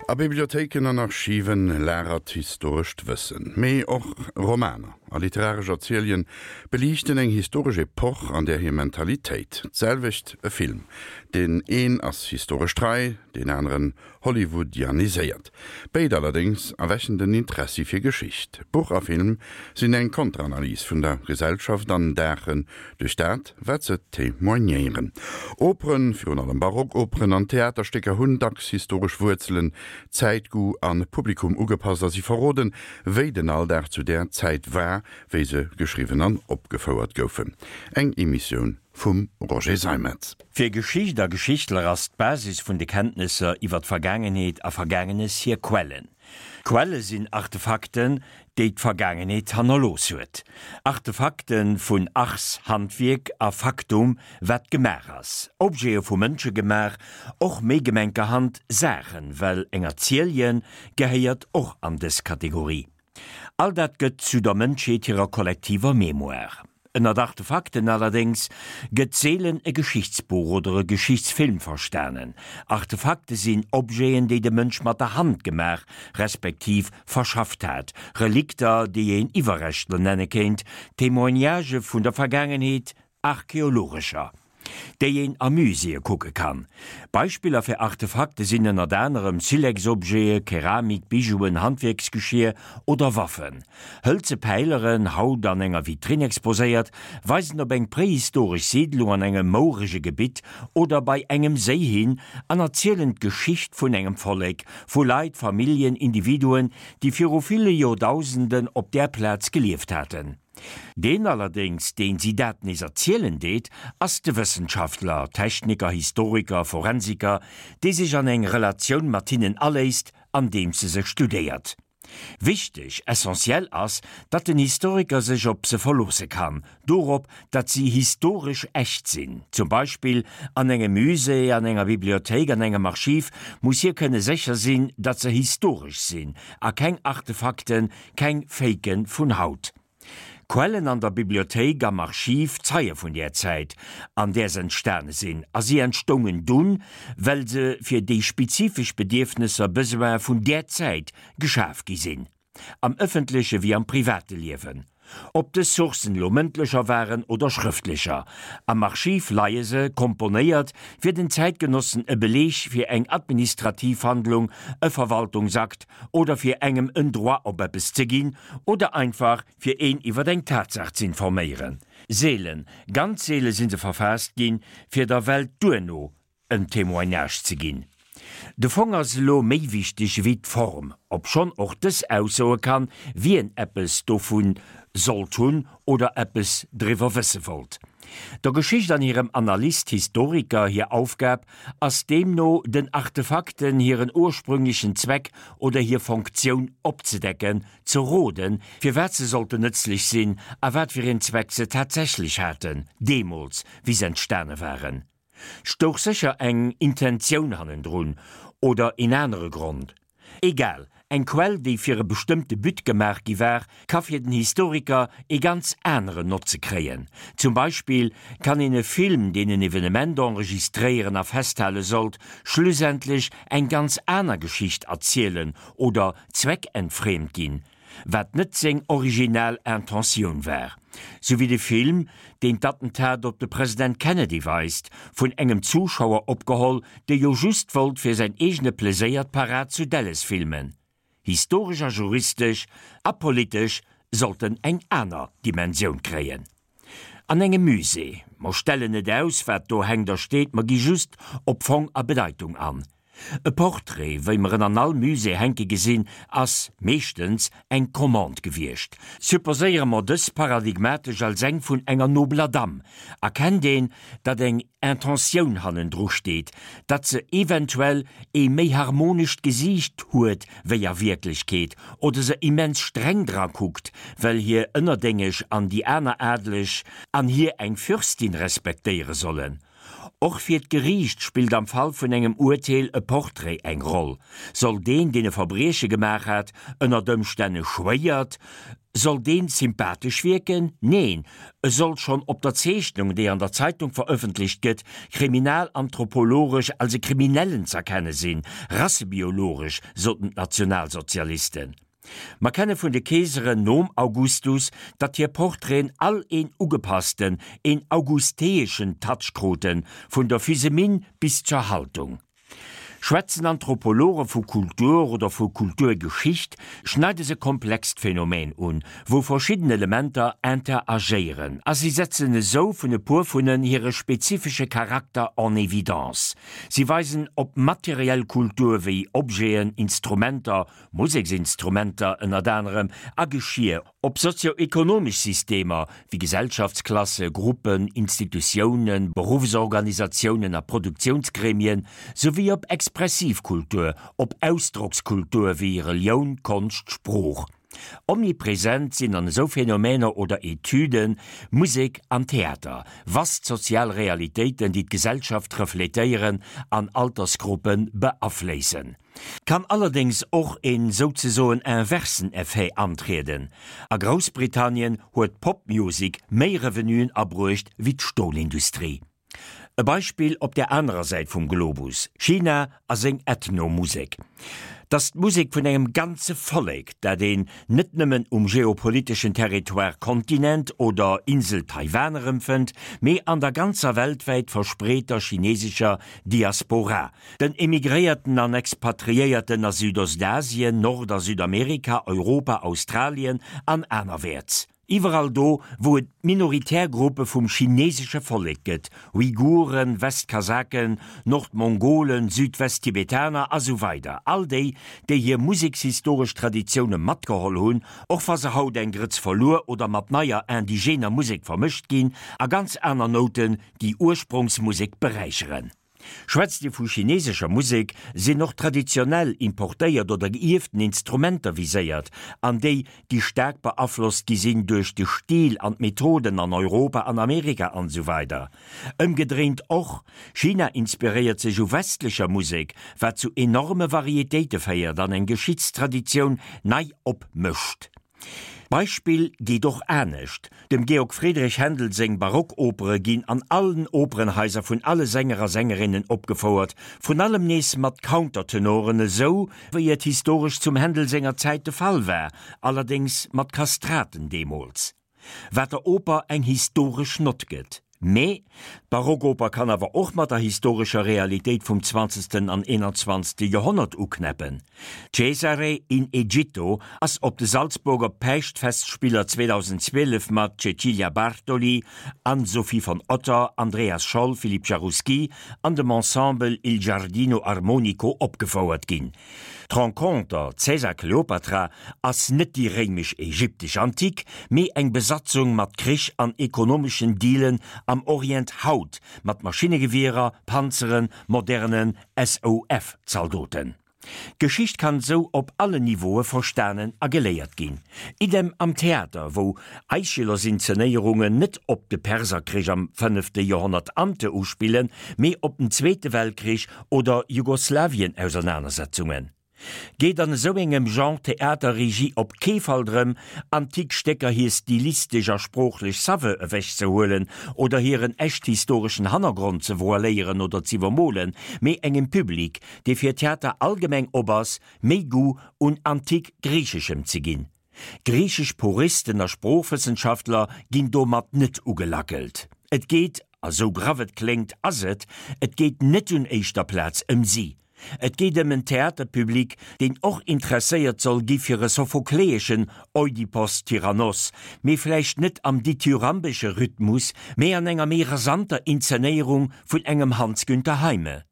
A Bibliothéiken an Archiven lagert historescht Wëssen. Mee och Romaner a literaresch Erzielien beliichten eng historesch Epoch an där hir Mentalitéit. D'selwecht e Film. Deen een ass historesch trei, deen aneren Hollywoodianiséiert. Béid allerdéngs erwächen den Interessi fir Geschicht. Buch a Film sinn eng Konteranalys vun der Gesellschaft an daachen duerch dat, wat se témoignéieren. Operen, virun allem Barockoperen an Theaterstécker hunn dacks historesch Wuerzelen, Zäitgoût a Publikum ugepasst a si verroden, wéi den Alldag zu där Zäit war, wéi se geschriwwen an opgefouert goufen. Eng Emissioun vum Roger Seimetz. Fir Geschicht a Geschichtler ass d'Basis vun de Kenntnesser iwwer d'Vergaangenheet a Vergaangenes hir Quellen. Quelle sinn Artefakten, déi d'Vergaangenheet hannerlooss huet. Artefakte vun Ars, Handwierk, a Factum, wat gemaach ass. Objete vu Mënsche gemaach, och méi gemenkerhand Saachen, well eng Erzielje gehéiert och an dës Kategorie. All dat gëtt zu der Mënschheet hirer kollektiver Mémoire. Ënnert Artefakten allerdéngs gëtt seelen e Geschichtsbuch oder e Geschichtsfilm verstanen. Artefakte sinn Objeten, déi de Mënsch mat der Hand gemaach respektiv verschafft hat, Relikter, déi een Iwwerreschtler nenne kéint, Témoignagë vun der Vergaangenheet, archeologescher. Déi een a Muséeë kucke kann. Beispiller fir Artefakte sinn ënnert anerem Silex-Objete, Keramik, Bijouen, Handwierksgeschier oder Waffen. Hëlze Päileren, haut an enger Vitrinn exposéiert, weisen op eng prehistoresch Siidlung an engem mourege Gebitt oder bei engem Séi hin an erzielen d'Geschicht vun engem Vollek, vu Leit, Familljen, Individuen, déi viru ville Joerdausenden op där Plaz gelieft haten. Deen allerdéngs, deen si dat nees erzielen deet, ass de Wëssenschaftler, Techniker, Historiker, Forensiker, dee sech an eng Relatioun mat hinnen aléisst, andeems e se studéiert. Wichteg, essentiell ass, datt den Historiker sech op se verloosse kann, dorop, datt si historesch echt sinn. Zum Beispill an engem Musée, an enger Bibliothéik, an engem Archiv muss hie kënne sécher sinn, datt se historesch sinn a keng Artefakten, Keng Faken vun haut. Quellen an der Bibliothéik, am Archiv, zeie vun där Zäit, an där se entstane sinn, a si entstoungen dunn, well se fir déi spezifesch Bedierfnesser, Besoine vun där Zäit geschaf gi sinn, am ëffentleche wéi am private Liewen. Ob dës Sourcen elo mëndlecher waren oder schrëftlecher, am Archiv leie se, komponéiert, fir den Zäitgenossen e Beleeg fir eng administrativ Handlung, e Verwaltungsakt, oder fir engem en Droit op eppes ze ginn oder einfach fir een iwwer eng Tatsaach z'informéieren. Seelen, ganz seele si se verfaasst ginn, fir der Welt duerno en Témoignage ze ginn. De Fong ass elo méi wichteg ewéi d'Form, obschonn och dës aussoe kann, wien eppes dovu sollt hunn oder eppes driwwer wësse wollt. Der Geschicht an hirem Analyst, Historiker hir Aufgab ass deemno den Artefakten hiren ursprünglechen Zweck oder hir Fonktioun opzedecken, ze roden, firwat se sollten nëtzlech sinn a wat fir een Zweck se tatsächlech haten, deemools wéi se entstane waren. Stouch sécher eng Intentioun hannendrun oder een anere Grond. Egal, eng Quell, déi fir e bestëmmte But gemaach gi war, ka fir den Historiker ee ganz aneren Notze kréien. Zum Beispill kann een e Film, deen en Evenement enregistréieren a festhale sollt, schlussendlech eng ganz aner Geschicht erzielen oder zweckentfremt ginn. wat net seng original Intentioun war. Sou wéi de Film, deen d'Attentat op de President Kennedy weist, vun engem Zuschauer opgeholl, dee jo just wollt fir säin eegene Pleséier d'Parad zu Dallas filmen. Historesch a juristesch a politesch sollt en eng aner Dimensioun kréien. An engem Musée. Mer stellen net aus, wat do hänkt a steet, mer gi just op Fong a Bedeitung an. E Portrait, wéi mer en an all Musée hänke gesinn, ass, meeschtens, eng Commande gewiescht. Supposéiere mer dës paradigmatesch als eng vun enger nobeler Damm, erkennt een, datt eng Intentioun hannendru steet, datt se eventuell ee méi harmonescht Gesiicht huet wéi a Wierklechkeet, oder se immens streng dra kuckt, well hir Ënnerdéngesch an déi aner Adeleg an hir eng Fürstin respektéiere sollen. Och fir d'Geriicht spillt am Fall vun engem Urteel e Portrait eng Roll. Soll deen, deen e Verbrieche gemaach hat, ënnert Ëmstänn e schwéiert, soll deen sympathesch wierken? Neen, e soll schonn op der Zeechnung, déi an der Zeitung verëffentlecht gëtt, kriminalanthropologesch als e Kriminellen z'erkenne sinn, rassebiologesch, soten d'Nationalsozialisten. Mer kenne vun de Keeseren nom Augustus, datt hir Portraiten all een ugepassten, een augusteeschen Touch kruten, vun der Physeminn bis zur Haltung. Schwätzen Anthropologe vu Kultur oder vu Kulturgeschicht, schneide se komplext Phänomen un, wou verschidden Elementer interagéieren, a si setzen esou vun e puer vun en hire spezifesche Charakter en évidence. Si weisen op materiell Kultur wéi Objeten, Instrumenter, Museksinstrumenter ënnert anerem, a Geschier, op sozio-ekonomesch Systemer wéi Gesellschaftsklasse, Gruppen, Institutiounen, Beruffsorganisatiounen a Produktiounsgremien, souwéi op expressiv Kultur, op Ausdrockskultur wéi Relioun, Konscht, Sprooch. Omnipresent sinn an esou Phänomener oder Etüden Musek an Theater, vast sozial Realitéiten, déi d'Gesellschaft refletéieren an Altersgruppe beafléissen. Kann allerdéngs och een souzesoen inversen Effet antrieden. A Groussbritannien huet d'Pop-Music méi Revenuen abruecht wéi d'Stolindustrie. E Beispill op der anerer Säit vum Globus, China a seng Ethno-Musek. T'ass d'Musek vun engem ganze Vollek, dat een net nëmmen um geopoliteschen Territoire Kontinent oder Insel Taiwan erëmfënnt, mee an der ganzer weltwäit verspreeter chinesescher Diaspora, Den Emigréierten an Expatriéierten a Südostasien, Nord a Südamerika, Europa, Australien an anerwäerts. Iwwerall do, wou et minoritär Gruppe vum chinesesche Vollek gëtt, Uiguren, Westkasaken, Nordmongolen, Südwesttibetaner a sou weider All déi, déi hir musekshistoresch Traditioune matgeholl hunn, och wa se haut eng Grëtz verluer oder mat neier indigener Musek vermëscht ginn a ganz aner Nouten déi Ursprongsmusek beräicheren. Schwätzt ee vu chinesescher Musek, sinn och traditionell, importéiert oder geierften Instrumenter viséiert, an déi, déi staark beaflosst gi sinn duerch de Stil an d'Methoden an Europa an Amerika an esou weider. Ëmgedréint och, China inspiréiert sech u westlecher Musek, wat zu enorme Varietéite féiert an eng Geschichtstraditioun nei opmëscht. D'Beispill geet och anescht, Dem Georg Friedrich Händel seng Barockopere ginn an allen Operenhaiser vun alle Sänger a Sängerinnen opgefouert, vrun allem nees mat Countertenoren, esou wéi et historesch zum Händel senger Zäit de Fall war, allerdéngs mat Kastraten deemools, wat der Oper eng historesch Nott gëtt. Mee d'Barockoper kann awer och mat der historescher Realitéit vum zwanzegsten an eenanzwanzegste Joerhonnert uknäppen. Cesare in Egitto ass op de Salzburger Päischtfestspiller 2012 mat Cecilia Bartoli, Anne-Sophie von Otter, Andreas Scholl, Philippe Jaroussky an dem Ensemble Il Giardino Armonico opgefouert ginn. D'Renconter Cäsar-Kleopatra ass net déi réimesch-ägyptesch Antik, mee eng Besatzung mat Krich an ekonomeschen Dealen am Orient haut, mat Maschinnegewierer, Panzeren, moderne SOF-Zaldoten. D'Geschicht kann sou op allen Niveaue verstanen a geléiert ginn. Idem am Theater, wou Aischylos-Inzenéierungen net op de Perserkrich am fënnefte Joerhonnert ante uspillen, mee op den Zweete Weltkrich oder Jugoslawien-Ausernanersetzungen. Geet an esou engem Genre Theaterregie op kee Fall drëm, antik Stécker hir stilistesch a sproochlech Saveur ewechzehuelen oder hiren echt historeschen Hannergrond ze voiléieren oder z'iwwermolen, mee engem Public, dee fir Theater allgemeng op ass, méi Goût un antik-Griicheschem ze ginn. Griichesch Puristen a Sproochwëssenschaftler ginn domat net ugelackelt. Et geet, a sou graff et kléngt, ass et, et geet net un éischter Plaz ëm si. Et geet ëm en Theaterpublic, deen och interesséiert soll gi fir e sophokleeschen Oidipos Tyrannos, mee vläicht net am dithyrambesche Rhythmus, mee an enger méi rasanter Inzenéierung vun engem Hans Günther Heime.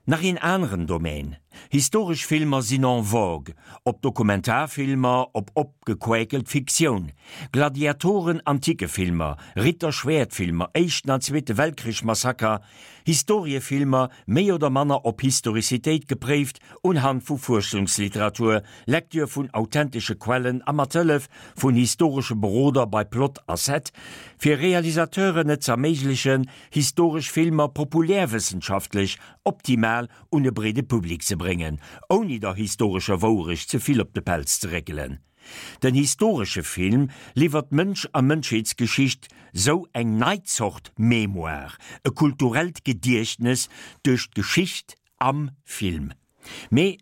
Nach een aneren Domaine. Historesch Filmer sinn en vogue, ob Dokumentarfilmer, ob opgequäkelt Fiktioun, Gladiatoren, Antikefilmer, Ritter-Schwäert-Filmer, Éischten an Zweete Weltkrich-Massaker, Historiefilmer, méi oder manner op Historizitéit gepréift, unhand vu Fuerschungsliteratur, Lektür vun authentesche Quellen a mat Hëllef vun historesche Beroder bei Plot a Set, fir Realisateuren et z'erméiglechen, historesch Filmer populärwëssenschaftlech optimal un e breede Public ze bréngen, ouni der historescher Wouerecht ze vill op de Pelz ze réckelen. Den historesche Film liwwert Mënsch a Mënschheetsgeschicht sou eng nei Zort Mémoire, e kulturellt Gediechtnes duerch d'Geschicht am Film. Mee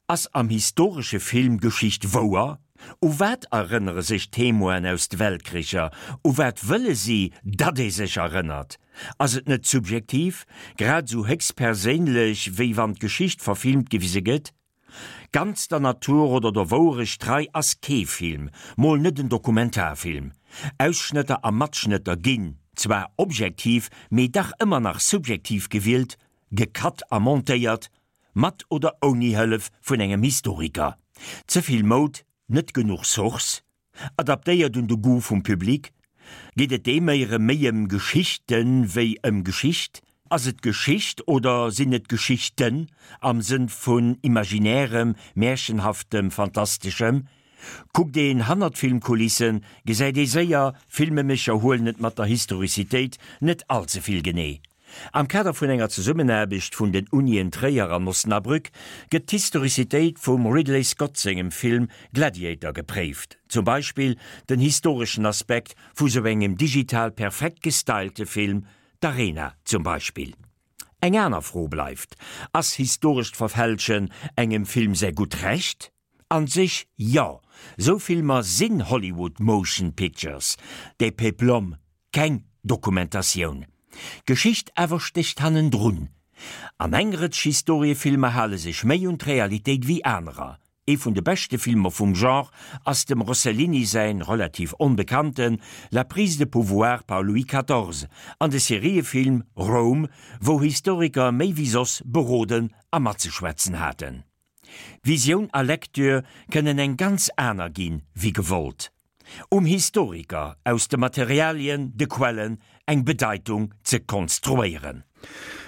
ass am historesche Film Geschicht wouer? U wat erënnere sech d'Témoinen aus de Weltkricher? U wat wëlle si, datt ee sech erënnert? Ass et net subjektiv, grad esou héchst perséinlech, wéi wann d'Geschicht verfilmt gewise gëtt? Ganz der Natur oder der Wouerecht trei ass kee Film, mol net en Dokumentarfilm. Ausschnëtter a Matschnëtter ginn zwar objektiv, mee dach ëmmer nach subjektiv gewielt, gecut a montéiert, mat oder ouni Hëllef vun engem Historiker. Ze vill Moud, net genuch Source? Adaptéiert un de Goût vum Public? Geet et deem éiere méi ëm Geschichten wéi ëm Geschicht? Ass et Geschicht oder sinn et Geschichten am Sënn vun Imaginärem, Märchenhaftem, Fantasteschem? Kuckt een hannert d'Filmkulissen, gesäit ee séier, Filmemécher huelen et mat der Historizitéit net all ze vill genee. Am Kader vun enger Zesummenaarbecht vun den Unien Tréier an Osnabrück gëtt d'Historizitéit vum Ridley Scott sengem Film Gladiator gepréift, zum Beispill den historeschen Aspekt vu sou engem digital perfekt gestylte Film, d'Arena zum Beispill. Eng aner Fro bleift, Ass historescht Verfälschen engem Film säi gutt Recht? An sech jo, sou Filmer sinn Hollywood Motion Pictures, des Peplum, keng Dokumentatioun. D'Geschicht awer stécht hannendrun. An eng Rëtsch Historiefilmer hale sech méi un d'Realitéit wéi anerer. Ee vun de beschte Filmer vum Genre ass dem Rossellini säin relativ onbekannten La prise de pouvoir par Louis quatorze an de Seriefilm Rome, wou Historiker méi wéi soss beroden a matzeschwätzen haten. Visioun a Lecture kënnen eng ganz aner ginn, wéi gewollt. Um Historiker, aus de Materialien, de Quellen, eng Bedeitung ze konstruéieren.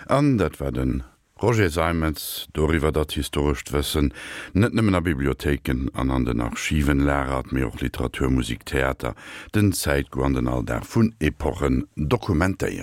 An dat war de Roger Seimetz doriwwer, datt historescht Wëssen net nëmmen a Bibliothéiken an an den Archiven lagert, mee och Literatur, Musik, Theater, den Zäitgoût an den Alldag vun Epochen dokumentéieren.